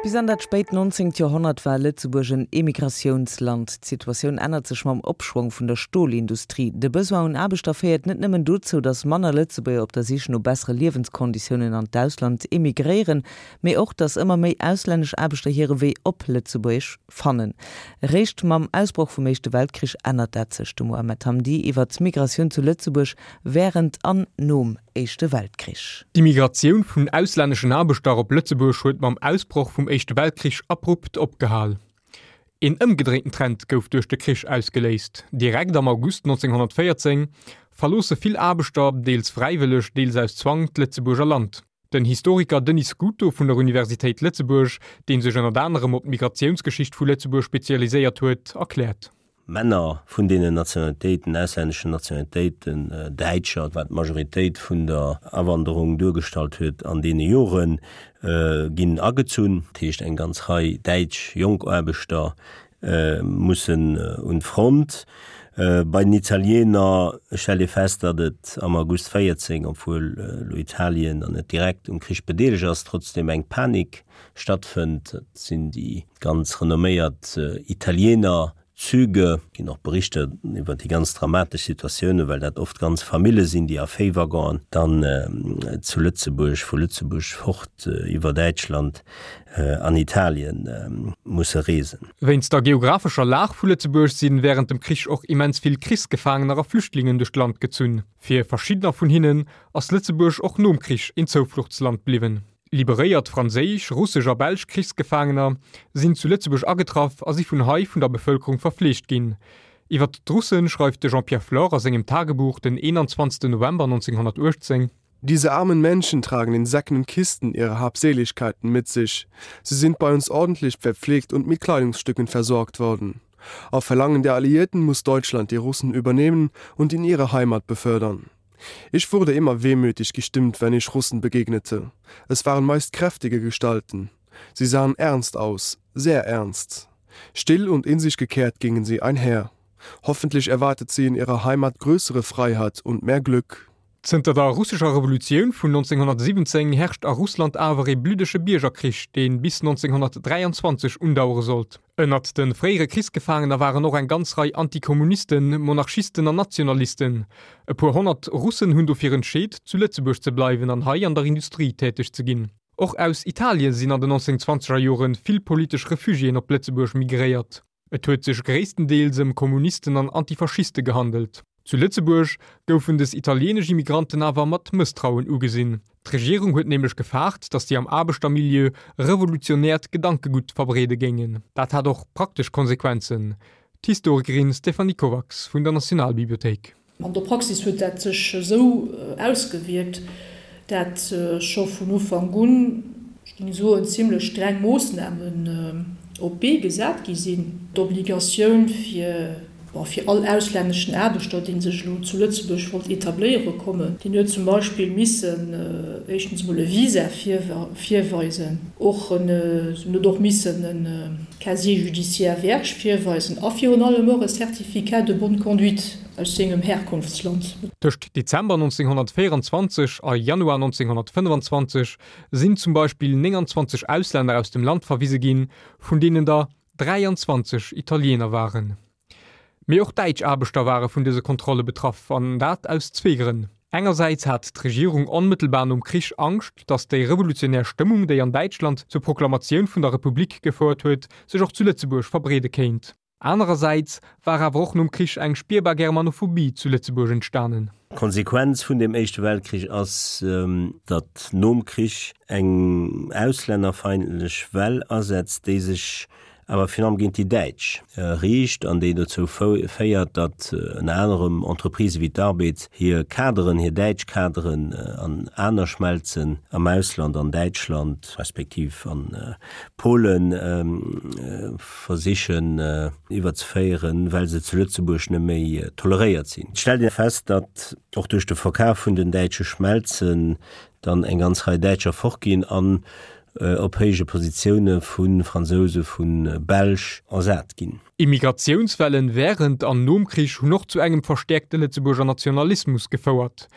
Bis an dat spéit 19. Joerhonnert war Lëtzebuerg en Emigratiounsland. D'Situatioun ännert sech mam Opschwong vun der Stolindustrie. De Besoin un Aarbechter féiert net nëmmen dozou, datt manner Lëtzebuerger op der Sich no bessere Liewenskonditiounen an d'Ausland emigréieren, mee och, datt ëmmer méi auslännesch Aarbechter hire Wee op Lëtzebuerg fannen. Eréischt mam Ausbroch vum Éischte Weltkrich ännert dat sech. De Mohamed Hamdi iwwer d'Migratioun zu Lëtzebuerg wärend an nom Éischte Weltkrich. D'Immigratioun vun auslänneschen Aarbechter op Lëtzebuerg huet mam Ausbroch vum Éischte Weltkrich abrupt opgehal. Een ëmgedréinten Trend gouf duerch de Krich ausgeléist. Direkt am August 1914 verloosse vill Aarbechter, deels fräiwëlleg, deels aus Zwang, d'Lëtzebuerger Land. Den Historiker Denis Scuto vun der Universitéit Lëtzebuerg, dee sech ënnert anerem op d'Migratiounsgeschicht vu Lëtzebuerg spezialiséiert huet, erkläert. Männer vun deenen Nationalitéiten, auslänneschen Nationalitéiten, Däitscher, wat d'Majoritéit vun der Awanderung duergestallt huet an deene Joren, ginn agezunn. Dat heescht, eng ganz Rei däitsch jonk Aarbechter mussen un d'Front. Bei den Italiener stellt ee fest, datt et am August 14, obwuel elo Italien dann net direkt um Krich bedeelegt ass, trotzdeem eng Panik stattfënnt. Dat sinn déi ganz renomméiert Italiener Züge. Et ginn och Berichter iwwer déi ganz dramatesch Situatiounen, well dat oft ganz Famille sinn, déi a Véiwaggonen dann zu Lëtzebuerg, vu Lëtzebuerg fort iwwer Däitschland an Italien musse reesen. Wéinst der geographescher Lag vu Lëtzebuerg si wärend dem Krich och immens vill Krichsgefaangener a Flüchtlingen duerch d'Land gezunn. Fir verschiddener vun hinnen ass Lëtzebuerg och nom Krich een Zoufluchtsland bliwwen. Liberéiert franséisch, russesch a belsch Krichsgefaangener sinn zu Lëtzebuerg agetraff a si vun hei vun der Bevëlkerung verfleegt ginn. Iwwer d'Russen schreift de Jean-Pierre Flore a sengem Tagebuch den 21 November 1918. Diese armen Menschen tragen in Säcken und Kisten ihre Habseligkeiten mit sich. Sie sind bei uns ordentlich verpflegt und mit Kleidungsstücken versorgt worden. Auf Verlangen der Alliierten muss Deutschland die Russen übernehmen und in ihre Heimat befördern. Ich wurde immer wehmütig gestimmt, wenn ich Russen begegnete. Es waren meist kräftige Gestalten. Sie sahen ernst aus, sehr ernst. Still und in sich gekehrt gingen sie einher. Hoffentlich erwartet sie in ihrer Heimat größere Freiheit und mehr Glück. Zënter der russescher Revolutioun vun 1917 herrscht a Russland awer ee bluddege Biergerkrich, dee bis 1923 undauere sollt. Ënnert de fréiere Krichsgefaangener waren och eng ganz Rei Antikommunisten, Monarchisten an Nationalisten. E puer honnert Russen hunn dofir entscheet, zu Lëtzebuerg ze bleiwen an hei an der Industrie täteg ze ginn. Och aus Italien sinn an den 1920er Jore vill politesch Refugiéen op Lëtzebuerg migréiert. Et huet sech gréisstendeels ëm Kommunisten an Antifaschiste gehandelt. Zu Lëtzebuerg goufen des italieenesch Immigranten awer mat Mësstrauen ugesinn. D'Regierung huet nämlech gefaart, datt si am Aarbechtermilieu revolutionäert Gedankegutt verbreede géingen. Dat hat och praktesch Konsequenzen. D'Historikerin Stéphanie Kovacs vun der Nationalbibliothéik. An der Praxis huet dat sech esou ausgewierkt, dat scho vun Ufank un, ech géing soen, zimlech streng Moossnamen op d'Bee gesat gi sinn. D'Obligatioun fir, bon, fir all auslänneschen Aarbechter, dee sech elo zu Lëtzebuerg wollt etabléiere kommen, deen huet zum Beispill missen éischtens emol e Visa virweisen, och en huet och missen e Casier judiciaire vierge virweisen a virun allem och e Certificat de bonne conduite. Aus sengem Herkunftsland. Tëscht Dezember 1924 a Januar 1925 sinn zum Beispill 29 Auslänner aus dem Land verwise ginn, vun deenen der 23 Italiener waren. Mee och däitsch Aarbechter ware vun dëse Kontrolle betraff, an dat aus zwee Grënn. Engersäits hat d'Regierung onmëttelbar nom Krich Angscht, datt déi revolutionär Stëmmung, déi an Däitschland zur Proklamatioun vun der Republik gefouert huet, sech och zu Lëtzebuerg verbreede kéint. Anerersäits war awer och nom Krich eng spierbar Germanophobie zu Lëtzebuerg entstanen. D'Konsequenz vun dem Éischte Weltkrich ass, datt nom Krich eng auslännerfeindlech Well asetzt, déi sech awer virun allem géint déi Däitsch riicht an déi dozou féiert, datt ënner anerem Entreprisë wéi d'Arbed hir Kaderen, hir däitsch Kaderen an aner Schmelzen am Ausland, an Däitschland respektiv an Polen, versichen iwwerzeféieren, well se zu Lëtzebuerg net méi toleréiert sinn. Et stellt ee fest, datt och duerch de Verkaf vun den däitsche Schmelzen dann eng ganz Rei Däitscher fortginn an op héije Positioune vu Fransouse, vu Belsch ersat ginn. Immigratiounswellen wärend an nom Krich hunn och zu engem verstäerkte Lëtzebuerger Nationalismus gefouert.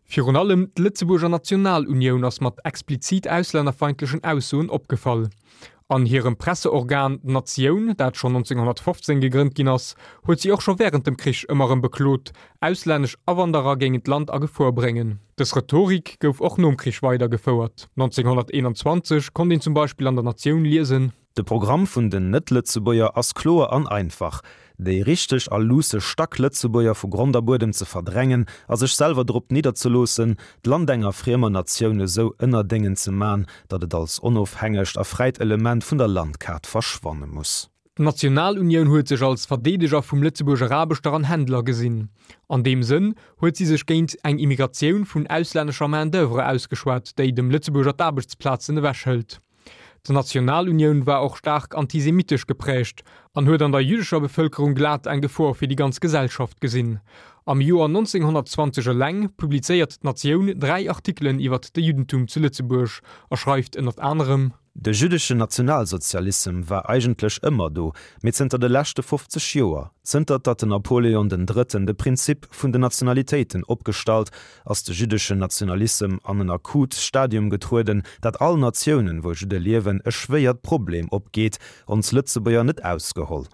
Virun allem d'Lëtzebuerger Nationalunioun ass mat explizit auslännerfeindlechen Aussoen opgefall. An hirem Presseorgan D'Natioun, dat schonn 1915 gegrënnt ginn ass, huet si och scho wärend dem Krich ëmmer erëm beklot, auslännesch Awanderer géingen d'Land a Gefor bréngen. Dës Rhetorik gouf och nom Krich weidergefouert. 1921 konnt een zum Beispill an der Natioun liesen. De Programm vun den Net-Lëtzebuerger ass kloer an einfach, déi richteg a luusse Stack-Lëtzebuerger vu Grond a Buedem ze verdrängen a sech selwer drop nidderzeloossen, d'Land enger friemer Natioun esou ënnerdéngen ze man, datt et als onofhängegt a fräit Element vun der Landkaart verschwanne muss. D'Nationalunioun huet sech als Verdeedeger vum Lëtzebuerger Aarbechter an Händler gesinn. An deem Sënn huet si sech géint eng Immigratioun vun auslännescher Main d'oeuvre ausgeschwat, déi dem Lëtzebuerger d'Aarbechtsplazen ewechhëlt. D'Nationalunioun war och staark antisemitesch geprägt an huet an der jüddescher Bevëlkerung glat eng Gefor fir déi ganz Gesellschaft gesinn. Am Joer 1920 eleng publizéiert d'Natioun 3 Artikelen iwwert de Juddentum zu Lëtzebuerg a schreift ënnert anerem. De jüddeschen Nationalsozialissem war eigentlech ëmmer do, mee zënter de leschte 50 Joer, zënter datt den Napoleon den Drëtten de Prinzip vun den Nationalitéiten opgestallt ass de jüddeschen Nationalissem an en akut Stadium getrueden, dat all Natiounen, wou Judde liewen, e schwéiert Problem opgeet, ons Lëtzebuerger net ausgeholl.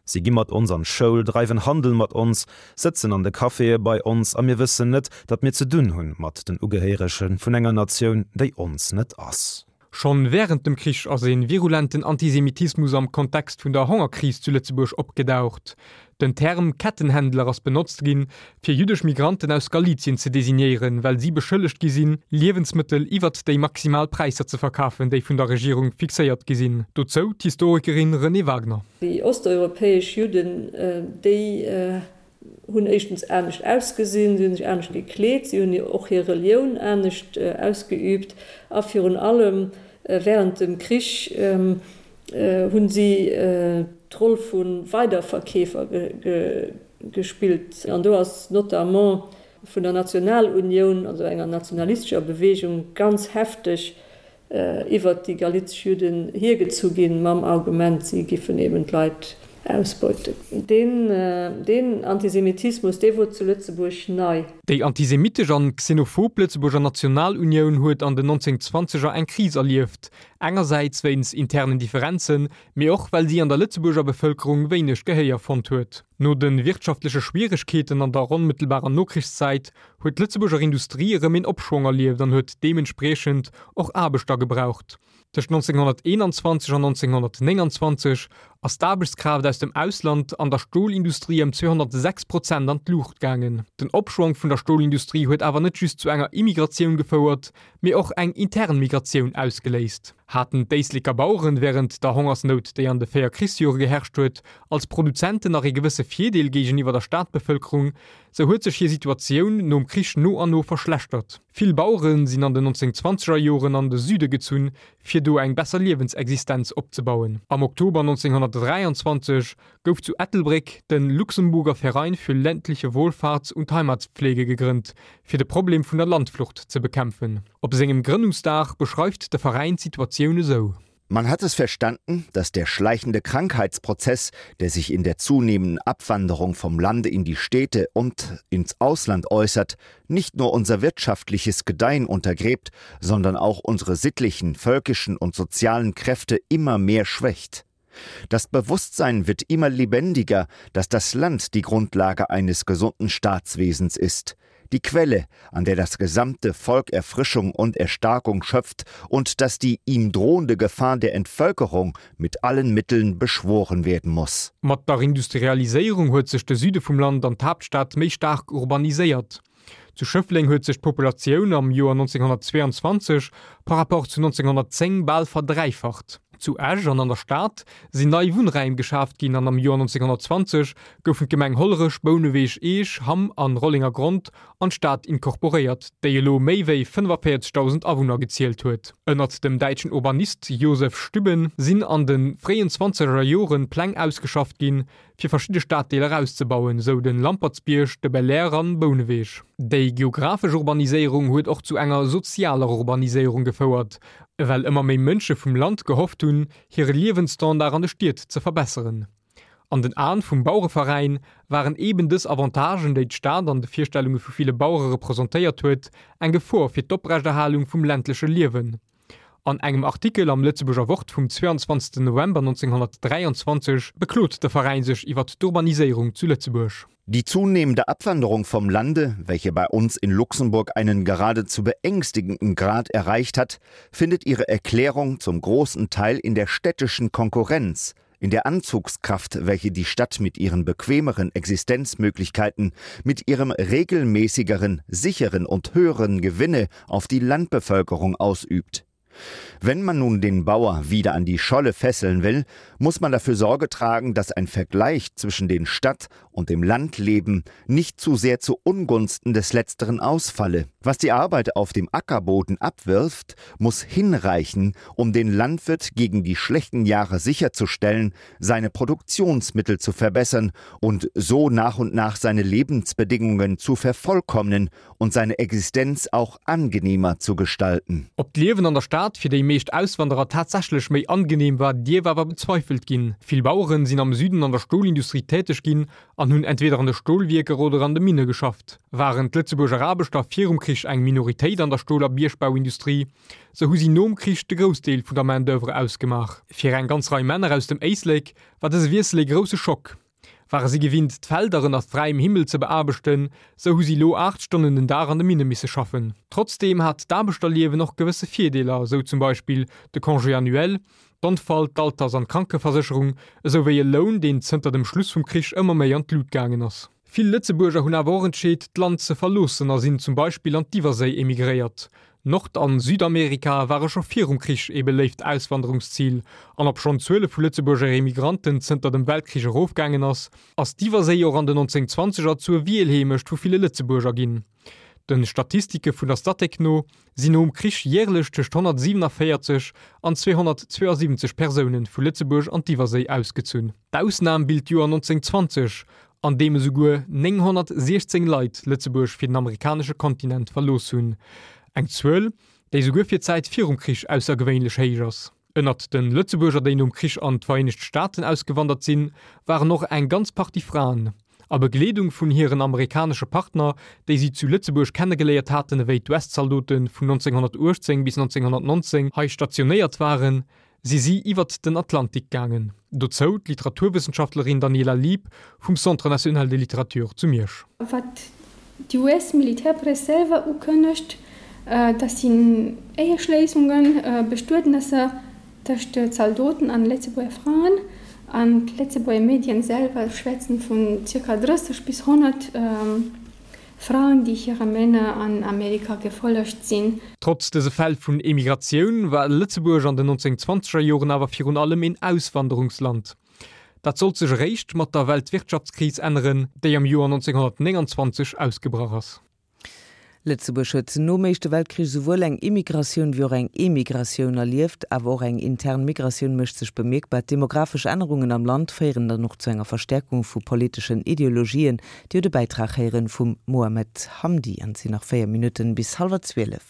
Si gi mat ons an d'Schoul, dreiwen Handel mat ons, sëtzen an de Caféë bei ons, a mir wëssen net, datt mir ze dunn hunn mat den Ugehéierege vun enger Natioun, déi ons net ass. Schonn wärend dem Krich ass e virulenten Antisemitismus am Kontext vun der Hongerkris zu Lëtzebuerg opgedaucht. Den Term Kettenhändler ass benotzt ginn, fir jüddesch Migranten aus Galizien ze designéieren, well si beschëllegt gi sinn, Liewensmëttel iwwert déi maximal Präisser ze verkafen, déi vun der Regierung fixéiert gi sinn. Dozou d'Historikerin Renée Wagner. Déi osteuropäesch Judden, déi hunn éischtens anescht ausgesinn, si hunn sech anescht gekleet, si hunn och hir Relioun anescht ausgeüübt a virun allem wärend dem Krich hunn si d'Roll vu Weiderverkeefer gespillt. An do ass notamment vun der Nationalunioun, also enger nationalistescher Beweegung, ganz hefteg iwwert déi galizesch Judden hiergezu ginn, mam Argument, si giffen eben d'Leit ausbeuten. Deen Antisemitismus, dee wor zu Lëtzebuerg nei. Déi antisemitesch an xenophob Lëtzebuerger Nationalunioun huet an den 1920er eng Kris erlieft, engersäits wéinst internen Differenzen, mee och well si an der Lëtzebuerger Bevëlkerung wéineg Gehéier fonnt huet. No de wirtschaftleche Schwieregkeeten an der onmëttelbarer Nokrichszäit huet d'Lëtzebuerger Industrie erëm een Opschwong erlieft an huet deementspriechend och Aarbechter gebraucht. Tëscht 1921 an 1929 ass d'Aarbechtskraaft aus dem Ausland an der Stolindustrie ëm 206 Prozent an d'Luucht gaangen. Den Opschwong vun der Stolindustrie huet awer net just zu enger Immigratioun gefouert, mee och eng intern Migratioun ausgeléist. Haten d'Éisleker Baueren wärend der Hongersnout, déi an de 4 Krichsjore geherrscht huet, als Produzenten nach ee gewësse Virdeel géigeniwwer der Stadbevëlkerung, Sou huet sech hir Situatioun nom Krich no an no verschlechtert. Vill Bauere sinn an den 1920er Joren an de Süde gezunn, fir do eng besser Liewensexistenz opzebauen. Am Oktober 1923 gouf zu Ettelbréck de Luxemburger Verein für ländliche Wohlfahrts und Heimatpflege gegrënnt, fir de Problem vun der Landflucht ze bekämpfen. Op sengem Grënnungsdag beschreift de Veräin d'Situatioun esou. Man hat es verstanden, dass der schleichende Krankheitsprozess, der sich in der zunehmenden Abwanderung vom Lande in die Städte und ins Ausland äußert, nicht nur unser wirtschaftliches Gedeihen untergräbt, sondern auch unsere sittlichen, völkischen und sozialen Kräfte immer mehr schwächt. Das Bewusstsein wird immer lebendiger, dass das Land die Grundlage eines gesunden Staatswesens ist die Quelle, an der das gesamte Volk Erfrischung und Erstarkung schöpft und dass die ihm drohende Gefahr der Entvölkerung mit allen Mitteln beschworen werden muss. Mat der Industrialiséierung huet sech de Süde vum Land an d'Haaptstad méi staark urbaniséiert. Zu Schëffleng huet sech d'Populatioun am Joer 1922 par rapport zu 1910 bal verdräifacht. Zu Esch an an der Stad sinn nei Wunnräim geschaaft ginn an am Joer 1920 goufen d'Gemeng Hollerech, Bouneweg, Eech, Hamm an Rollengergrond an d'Stad incorporéiert, déi elo méi wéi 45.000 Awunner gezielt huet. Ënnert dem däitschen Urbanist Josef Stübben sinn an de fréien zwanzeger Joren Pläng ausgeschafft ginn, fir verschidde Staddeeler auszebauen, sou den Lampertsbierg, de Belair an Bouneweg. Déi geographesch Urbaniséierung huet och zu enger sozialer Urbaniséierung gefouert, well ëmmer méi Mënsche vum Land gehofft hunn, hire Liewensstandard an de Stied ze verbesseren. An den Aen vum Bauereveräin waren eben dës Avantagen, déi d'Stad an de Virstellunge vu ville Bauere representéiert huet, eng Gefor fir d'Oprechterhalung vum ländleche Liewen. An engem Artikel am Lëtzebuerger Wort vum 22 November 1923 beklot de Veräin sech iwwer d'Urbaniséierung zu Lëtzebuerg. Die zunehmende Abwanderung vom Lande, welche bei uns in Luxemburg einen geradezu beängstigenden Grad erreicht hat, findet ihre Erklärung zum großen Teil in der städtischen Konkurrenz, in der Anzugskraft, welche die Stadt mit ihren bequemeren Existenzmöglichkeiten, mit ihrem regelmäßigeren, sicheren und höheren Gewinne auf die Landbevölkerung ausübt. Wenn man nun den Bauer wieder an die Scholle fesseln will, muss man dafür Sorge tragen, dass ein Vergleich zwischen den Stadt und dem Landleben nicht zu sehr zu Ungunsten des letzteren ausfalle. Was die Arbeit auf dem Ackerboden abwirft, muss hinreichen, um den Landwirt gegen die schlechten Jahre sicherzustellen, seine Produktionsmittel zu verbessern und so nach und nach seine Lebensbedingungen zu vervollkommnen und seine Existenz auch angenehmer zu gestalten. Ob d'Liewen an der Stad fir déi meescht Auswanderer tatsächlech méi angenehm war, dierf awer bezweifelt ginn. Vill Baueren sinn am Süden an der Stolindustrie täteg ginn an hunn entweder an de Stolwierker oder an de Minne geschafft. Waren d'Lëtzebuerger Aarbechter virum Krich eng Minoritéit an der Stol a Biergbauindustrie, sou hu si nom Krich de Groussdeel vun der Main-d'oeuvre ausgemaach. Fir eng ganz Rei Männer aus dem Éislek war dëse Wiessel ee grousse Schock. Ware si gewinnt, d'Felder ënner fräiem Himmel ze beaarbechten, sou hu si lo 8 Stonnen den Dag an de Minne misse schaffen. Trotzdeem hat d'Aarbechterliewen och gewësse Virdeeler, sou zum Beispill de Congé annuel, d'Onfall-, d'Alters an d'Krankeversécherung, esou wéi e Loun, deen zënter dem Schluss vum Krich ëmmer méi an d'Lut gaangen ass. Vill Lëtzebuerger hunn awer och entscheet, d'Land ze verloossen a sinn zum Beispill an d'Iwwerséi emigréiert. Nord an Südamerika ware scho virum Krich ee beléift Auswanderungszil, an obschonn d'Zuele vu Lëtzebuerger Emigranten zënter dem Weltkrich erofgaangen ass, ass d'Iwwerséi och an den 1920er zur Wielheemecht vu ville Lëtzebuerger ginn. De Statistike vun der Statec no sinn nom Krich järlech tëscht 147 an 272 Persoune vu Lëtzebuerg an d'Iwwerséi ausgezunn. D'Ausnam bilt d'Joer 1920, an deem esouguer 916 Leit Lëtzebuerg fir den amerikanesche Kontinent verlooss hunn, eng Zuel, déi esouguer fir d'Zäit virum Krich aussergewéinlech héich ass. Ënnert de Lëtzebuerger, déi nom Krich an d'Vereenegt Staaten ausgewandert sinn, waren och eng ganz Partie Fraen. A Begleedung vun hiren amerikanesche Partner, déi si zu Lëtzebuerg kennegeléiert haten ewéi d'US-Zaldote vun 1918 bis 1919 hei stationéiert waren, si si iwwert den Atlantik gaangen. Dozou d'Literaturwëssenschaftlerin Daniela Lieb vum Centre national de littérature zu Miersch. Wat d'US-Militärpress selwer ukënnegt, dat sinn Éieschléissungen, Bestuetnesser tëscht Zaldoten an Lëtzebuerger Fraen. An d'Lëtzebuerger Medien selwer schwätzen vun zirka 30 bis 100 Fraen, déi hire Männer an Amerika gefollegt sinn. Trotz dëse Fäll vun Emigratioun war Lëtzebuerg an den 1920er Joren awer virun allem een Auswanderungsland. Dat sollt sech eréischt mat der Weltwirtschaftskris änneren, déi am Joer 1929 ausgebrach ass. Lëtzebuerg huet nom Éischte Weltkrich esouwuel eng Immigratioun wéi och eng Emigratioun erlieft. Awer och eng intern Migratioun mécht sech bemierkbar. D'demographesch Ännerungen am Land féieren dann och zu enger Verstäerkung vu politeschen Ideologien, Dir hutt e Bäitrag héieren vum Mohamed Hamdi an et sinn nach 4 Minutten bis hallwer 12.